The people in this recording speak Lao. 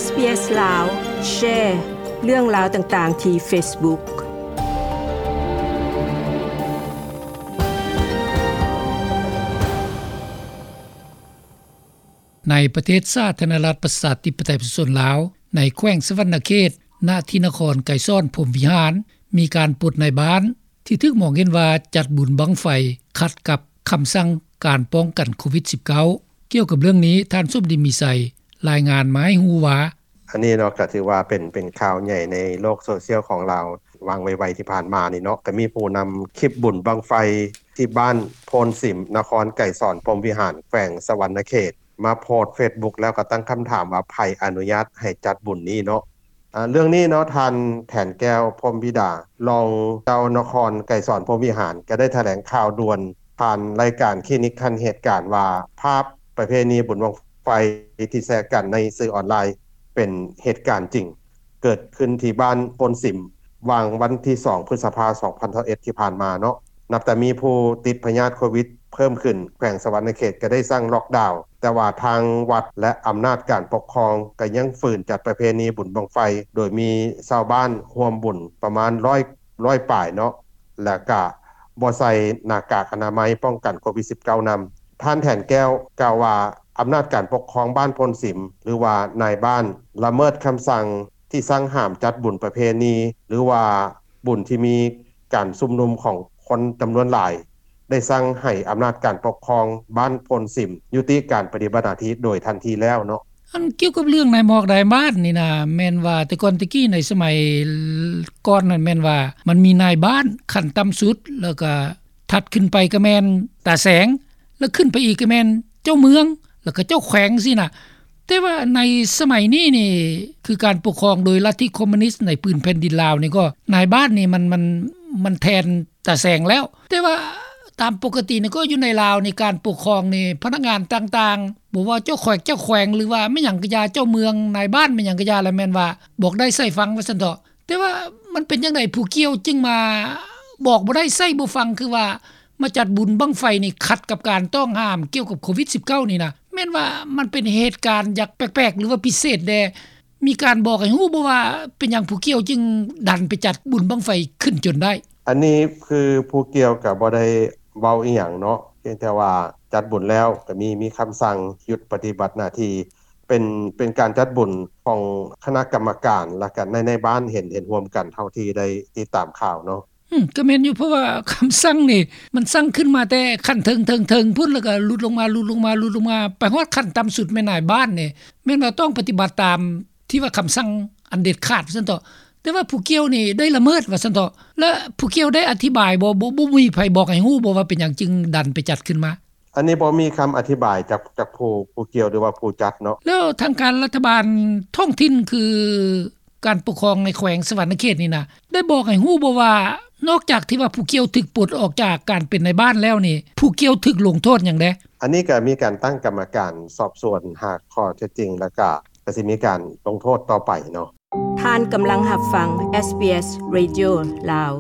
ເອສ ບີ ເອສ ລາວ ແຊເລື່ອງລາວຕ່າງໆທີ່ເຟສບຸກ. ໃນປະເທດສາທາລະນະລັດ ປະຊາທິປະໄຕ ປະຊາຊົນລາວ ໃນແຂວງສະຫວັນນະເຂດ ນະທີ່ນະຄອນໄກສອນ ພົມວິຫານ ມີການປົດນາຍບ້ານ ທີ່ຖືກມອງເຫັນວ່າຈັດບຸນບັ້ງໄຟຂັດກັບຄຳສັ່ງການປ້ອງກັນໂຄວິດສິບເກົ້າ. ກ່ຽວກັບເລື່ອງນີ້ ທ່ານສົມດີ ມີໄຊ ລາຍງານມາໃຫ້ຮູ້ວ່າ ອັນນີ້ເນາະ ກໍຖືວ່າເປັນ ເປັນຂ່າວໃຫຍ່ໃນໂລກໂຊຊຽວຂອງລາວ ຫວ່າງໄວໆທີ່ຜ່ານມານີ້ເນາະ ກໍມີຜູ້ນຳຄລິບບຸນບັ້ງໄຟທີ່ບ້ານໂພນສິມ ນະຄອນໄກສອນ ພົມວິຫານ ແຂວງສະຫວັນນະເຂດ ມາໂພສເຟສບຸກ ແລ້ວກໍຕັ້ງຄຳຖາມວ່າ ໃຜອະນຸຍາດໃຫ້ຈັດບຸນນີ້ເນາະ. ອາ ເລື່ອງນີ້ເນາະ ທ່ານ ແຖນແກ້ວ ພົມວິດາ ລອງເຈົ້ານະຄອນໄກສອນ ພົມວິຫານ ກໍໄດ້ຖະແຫຼງຂ່າວດ່ວນຜ່ານລາຍການຄລີນິກທັນເຫດການວ່າ ພາບປະເພນີບຸນບັ້ງໄຟທີ່ແຊກັນໃນສື່ອອນລາຍ ເປັນເຫດການຈິງ ເກີດຂຶ້ນທີ່ບ້ານໂພນສິມ ຫວ່າງວັນທີສອງ ພຶດສະພາ ສອງພັນຊາວເອັດ ທີ່ຜ່ານມາເນາະ. ນັບແຕ່ມີຜູ້ຕິດພະຍາດໂຄວິດເພີ່ມຂຶ້ນ ແຂວງສະຫວັນນະເຂດກໍໄດ້ສັ່ງລັອກດາວ ແຕ່ວ່າທາງວັດ ແລະ ອຳນາດການປົກຄອງກໍຍັງຝືນຈັດປະເພນີບຸນບັ້ງໄຟ ໂດຍມີຊາວບ້ານຮ່ວມບຸນປະມານ ຮ້ອຍ ຮ້ອຍປາຍເນາະ ແລະ ກະບໍ່ໃສ່ໜ້າກາກອະນາໄມປ້ອງກັນໂຄວິດສິບເກົ້ານຳ. ທ່ານ ແຖນແກ້ວ ກ່າວວ່າ ອຳນາດການປົກຄອງບ້ານໂພນສິມ ຫຼືວ່ານາຍບ້ານ ລະເມີດຄຳສັ່ງທີ່ສັ່ງຫ້າມຈັດບຸນປະເພນີ ຫຼືວ່າບຸນທີ່ມີການຊຸມນຸມຂອງຄົນຈຳນວນຫຼາຍ ໄດ້ສັ່ງໃຫ້ອຳນາດການປົກຄອງບ້ານໂພນສິມ ຍຸຕິການປະຕິບັດໜ້າທີ່ໂດຍທັນທີແລ້ວເນາະ. ອັນກ່ຽວກັບເລື່ອງນາຍໝອກນາຍບ້ານນີ້ນະ ແມ່ນວ່າແຕ່ກ່ອນແຕ່ກີ້ໃນສະໄໝກ່ອນນັ້ນ ແມ່ນວ່າມັນມີນາຍບ້ານຂັ້ນຕ່ຳສຸດ ແລ້ວກະຖັດຂຶ້ນໄປກໍແມ່ນຕາແສງ ແລ້ວຂຶ້ນໄປອີກກໍແມ່ນເຈົ້າເມືອງ ແລ້ວກໍເຈົ້າແຂວງຊີ້ນະ. ແຕ່ວ່າໃນສະໄໝນີ້ນີ້ ຄືການປົກຄອງໂດຍລັດທິຄອມມູນິດໃນພື້ນແຜ່ນດິນລາວນີ້ ກໍນາຍບ້ານນີ້ມັນ ມັນ ມັນແທນຕາແສງແລ້ວ. ແຕ່ວ່າຕາມປົກກະຕິນີ້ ກໍຢູ່ໃນລາວນີ້ ການປົກຄອງນີ້ ພະນັກງານຕ່າງໆ ບໍ່ວ່າເຈົ້າແຂວງ ເຈົ້າແຂວງ ຫຼືວ່າແມ່ນຫຍັງກະຢ່າ ເຈົ້າເມືອງ ນາຍບ້ານ ແມ່ນຫຍັງກະຢ່າ ລະແມ່ນວ່າບອກໄດ້ໃສ່ຟັງ ວ່າຊັ້ນເຖາະ. ແຕ່ວ່າມັນເປັນຈັ່ງໃດ ຜູ້ກ່ຽວຈຶ່ງມາບອກບໍ່ໄດ້ໃສ່ບໍ່ຟັງ ຄືວ່າມາຈັດບຸນບັ້ງໄຟນີ້ ຂັດກັບການຕ້ອງຫ້າມກ່ຽວກັບໂຄວິດສິບເກົ້ານີ້ນະ? ແມ່ນວ່າມັນເປັນເຫດການຢ່າງແປກໆ ຫຼືວ່າພິເສດແດ່ ມີການບອກໃຫ້ຮູ້ບໍ່ວ່າ ເປັນຫຍັງຜູ້ກ່ຽວຈຶ່ງດັນໄປຈັດບຸນບັ້ງໄຟຂຶ້ນຈົນໄດ້? ອັນນີ້ຄືຜູ້ກ່ຽວກໍບໍ່ໄດ້ເວົ້າອີ່ຫຍັງເນາະ ພຽງແຕ່ວ່າຈັດບຸນແລ້ວ ກໍມີ ມີຄຳສັ່ງຢຸດປະຕິບັດໜ້າທີ່ ເປັນ ເປັນການຈັດບຸນຂອງຄະນະກຳມະການ ແລ້ວກໍໃນ ໃນບ້ານເຫັນ ເຫັນຮ່ວມກັນ ເທົ່າທີ່ໄດ້ຕິດຕາມຂ່າວເນາະ. ອືມ ກໍແມ່ນຢູ່ ເພາະວ່າຄຳສັ່ງນີ້ ມັນສັ່ງຂຶ້ນມາແຕ່ຂັ້ນເທິງໆໆພຸ້ນ ແລ້ວກໍຫຼຸດລົງມາ ຫຼຸດລົງມາ ຫຼຸດລົງມາ ໄປຮອດຂັ້ນຕ່ຳສຸດແມ່ນນາຍບ້ານນີ້ ແມ່ນວ່າຕ້ອງປະຕິບັດຕາມທີ່ວ່າຄຳສັ່ງອັນເດັດຂາດ ວ່າຊັ້ນເຖາະ. ແຕ່ວ່າຜູ້ກ່ຽວນີ້ໄດ້ລະເມີດ ວ່າຊັ້ນເຖາະ. ແລະ ຜູ້ກ່ຽວໄດ້ອະທິບາຍບໍ່? ບໍ່ ບໍ່ມີໃຜບອກໃຫ້ຮູ້ບໍ່ວ່າເປັນຫຍັງຈຶ່ງດັນໄປຈັດຂຶ້ນມາ? ອັນນີ້ບໍ່ມີຄຳອະທິບາຍຈາກ ຈາກຜູ້ ຜູ້ກ່ຽວ ຫຼືວ່າຜູ້ຈັດເນາະ. ແລ້ວທາງການລັດຖະບານທ້ອງຖິ່ນ ຄືການປົກຄອງໃນແຂວງສະຫວັນນະເຂດນີ້ນະ ໄດ້ບອກໃຫ້ຮູ້ບໍ່ວ່າ ນອກຈາກທີ່ວ່າຜູ້ກ່ຽວຖືກປົດອອກຈາກການເປັນນາຍບ້ານແລ້ວນີ້ ຜູ້ກ່ຽວຖືກລົງໂທດຫຍັງແດ່? ອັນນີ້ກໍມີການຕັ້ງກຳມະການສອບສວນຫາຂໍ້ເທັດຈິງ ແລ້ວກໍ ກໍຊິມີການລົງໂທດຕໍ່ໄປເນາະ. ທ່ານກຳລັງຮັບຟັງ ເອສ ບີ ເອສ Radio ລາວ.